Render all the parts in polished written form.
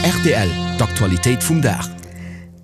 Rtl, D'Aktualitéit vum Dag.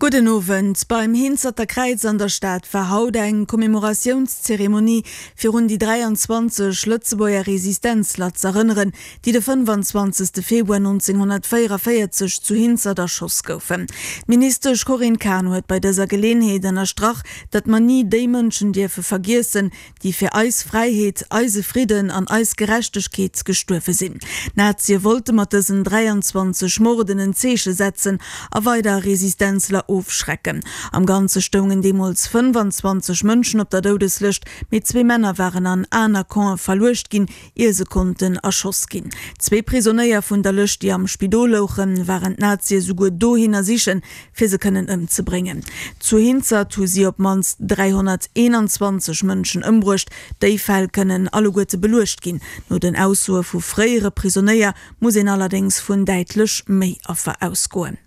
Gudden Owend. Beim Hinzerter Kräiz an der Stad war haut eng Commémoratiounszeremonie fir un déi 23 Lëtzebuerger Resistenzler z'erënneren, déi de 25. Februar 1944 zu Hinzert erschoss goufen. D'Ministesch Corinne Cahen huet bei dëser Geleenheet ënnerstrach, datt mer ni déi Mënschen dierfe vergiessen, déi fir eis Fräiheet, eise Fridden an eis Gerechtegkeet gestuerwe sinn. D'Nazie wollte mat dësen 23 Morden en Zeeche setzen a weider Resistenzler ofschrecken. Am Ganze stoungen deemools 25 Mënschen op der Doudeslëscht, mee zwee Männer waren an aner Campe verluecht ginn, ier se konnten erschoss ginn. Zwee Prisonéier vun der Lëscht, déi am Spidol louchen, waren d'Nazie souguer dohinner sichen, fir se kënnen ëmzebréngen. Zu Hinzert hu si op d'mannst 321 Mënschen ëmbruecht. Déi Fäll kënnen alleguerte beluecht ginn. No den Aussoe vu fréiere Prisonéier muss een allerdéngs vun däitlech méi Affer ausgoen.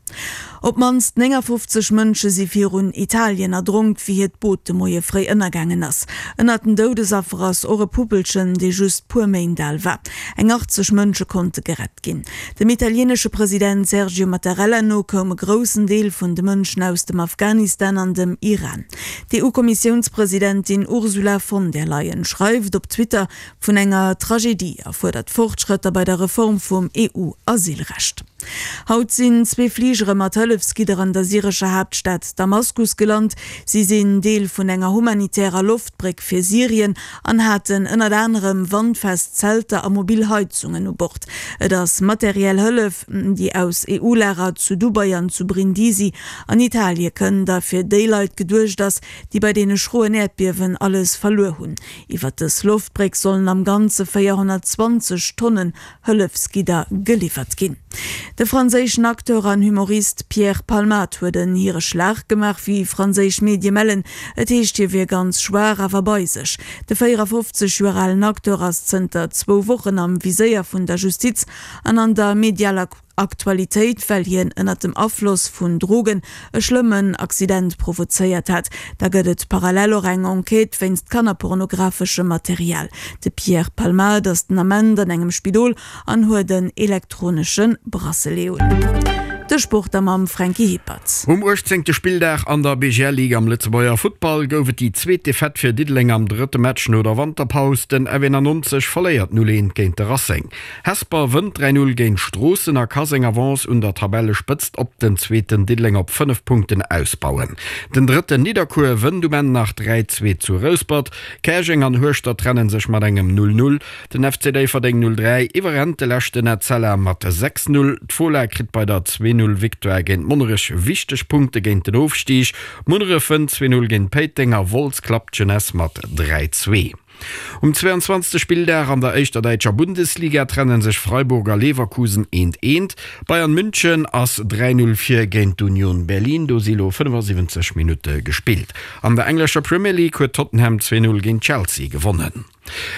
Op d'mannst 59 Mënsche si virun Italien erdronk, wéi hiert Boot de Moie fréi ënnergaangen ass. Ënnert den Doudesaffer ass och e Puppelchen, dee just puer Méint al war. Eng 80 Mënsche konnte gerett ginn. Dem italieenesche President Sergio Mattarella no koum e groussen Deel vun de Mënschen aus dem Afghanistan an dem Iran. D'EU-Kommissiounspresidentin Ursula von der Leyen schreift op Twitter vun enger Tragedie a fuerdert Fortschrëtter bei der Reform vum EU-Asylrecht. Haut sinn zwee Fligere mat Hëllefsgidder an der syrescher Haaptstad Damaskus gelant. Si sinn Deel vun enger humanitärer Loftbréck fir Syrien an haten ënnert anerem wandfest Zelter a mobil Heizungen u Bord. Et ass materiell Hëllef, déi aus EU-Lager zu Dubai an zu Brindisi an Italie kënnt a fir déi Leit geduecht ass, déi bei deene schroen Äerdbiewen alles verluer hunn. Iwwer dës Loftbréck sollen am Ganze 420 Tonnen Hëllefsgidder geliwwert ginn. De franséischen Acteur an Humorist Pierre Palmade huet en hire Schlag gemaach, wéi franséisch Medie mellen. Et heescht, hie wier ganz schwaach, awer bei sech. De 54 Joer alen Acteur ass zënter zwou Wochen am Viséier vun der Justiz an an der medialer Aktualitéit, well hien ënnert dem Afloss vun Drogen e schlëmmen Accident provozéiert hat. Da gëtt et parallel och eng Enquête wéinst kannerpornografeschem Material. De Pierre Palmade ass den Ament an engem Spidol an huet en elektronesche Bracelet un. De Sport da mam Franky Hippert. Um uechtzéngte Spilldag an der BGL Ligue am Lëtzebuerger Futtball gouf et déi zweet Defaite fir Diddeleng am drëtte Match no der Wanterpaus. Den F91 verléiert 0, 1 géint de Racing. Hesper wënnt 3, 0 géint Stroossen a ka seng Avance un der Tabellespëtzt op den zweeten Diddeleng op 5 Punkten ausbauen. Den drëtten Nidderkuer wënnt um Enn nach 3, 2 zu Rouspert. Käerjeng an Hueschtert trenne sech mat engem 0, 0. Den FC Déifferdeng 0, 3 iwwerrennt de leschten Etzella mat 6, 0. D'Fola kritt bei der 2, 0 Victoire géint Monnerech wichteg Punkte géint den Ofstig. Munneref wënnt 2, 0 géint Péiteng a Wolz klappt d'Jeunesse mat 3, 2. Um 22. Spilldag an der éischter däitscher Bundesliga trenne sech Freiburg a Leverkusen eent eent. Bayern München ass 3, 0 vir géint d'Union Berlin, do si lo 75 Minutte gespillt. An der englescher Premier League huet Tottenham 2, 0 géint Chelsea gewonnen.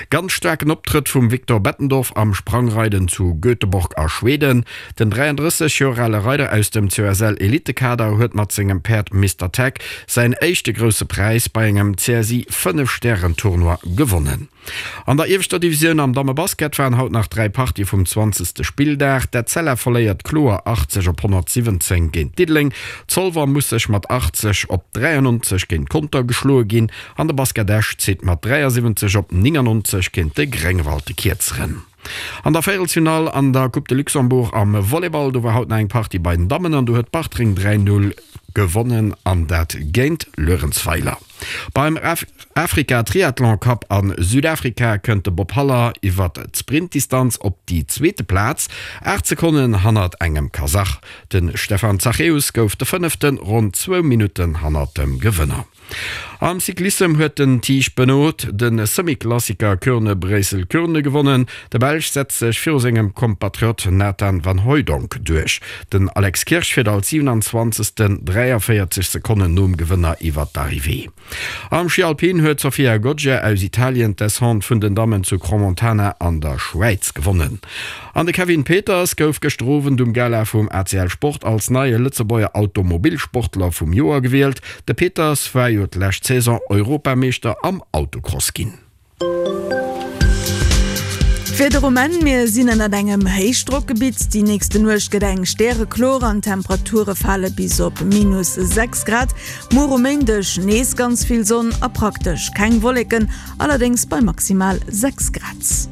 Ganz staarken Optrëtt vum Victor Bettendorf am Sprangreiden zu Göteborg a Schweden. Den 33 Joer ale Reider aus dem COSL-Elitekader huet mat sengem Päerd Mister Tech säin éischte Grousse Präis bei engem CSI 5 Stären-Tournoi gewonnen. An der ieweschter Divisioun am Dammebasket waren haut nach 3 Partië vum 20. Spilldag. D'Etzella verléiert kloer 80 op 117 géint Diddeleng, Zolwer muss sech mat 80 op 93 géint Conter geschloe ginn an de Basket Esch zitt mat 73 op 99 géint de Gréngewald de Kierzeren. An der Véierelsfinall an der Coupe de Luxembourg am Volleyball, do war haut nach eng Partie bei den Dammen an do huet Bartreng 3, 0 gewonnen an dat géint Luerenzweiler. Beim Afrika Triathlon Cup a Südafrika kënnt de Bob Haller iwwert d'Sprintdistanz op déi zweete Plaz, 8 Sekonnen hannert engem Kasach. De Stefan Zachäus gouf de Fënneften, ronn zwou Minutten hannert dem Gewënner. Am Cyclissem huet den Tiesj Benoot de Semi-Klassiker Kuurne-Bréissel-Kuurne gewonnen. De Belsch setzt sech viru sengem Kompatriot Nathan Van Hooydonck duerch. Den Alex Kirsch fiert als 27. 43 Sekonnen nom Gewënner iwwer d'Arrivée. Am Schi Alpin huet d'Sofia Goggia aus Italien d'Descente vun den Dammen zu Crans-Montana an der Schwäiz gewonnen. An de Kevin Peters gouf gëschter Owend um Gala vum ACL Sport als neie Lëtzebuerger Automobilsportler vum Joer gewielt. De Peters war jo d'lescht Saison Europameeschter am Autocross ginn. D'Wieder um Enn, Mir sinn ënnert engem Héichdrockgebitt. Déi nächste Nuecht gëtt eng stärekloer an d'Temperature fale bis op minus 6 Grad. Muer um Méindeg nees ganz vill Sonn a praktesch keng Wolleken, allerdéngs bei maximal 6 Grad.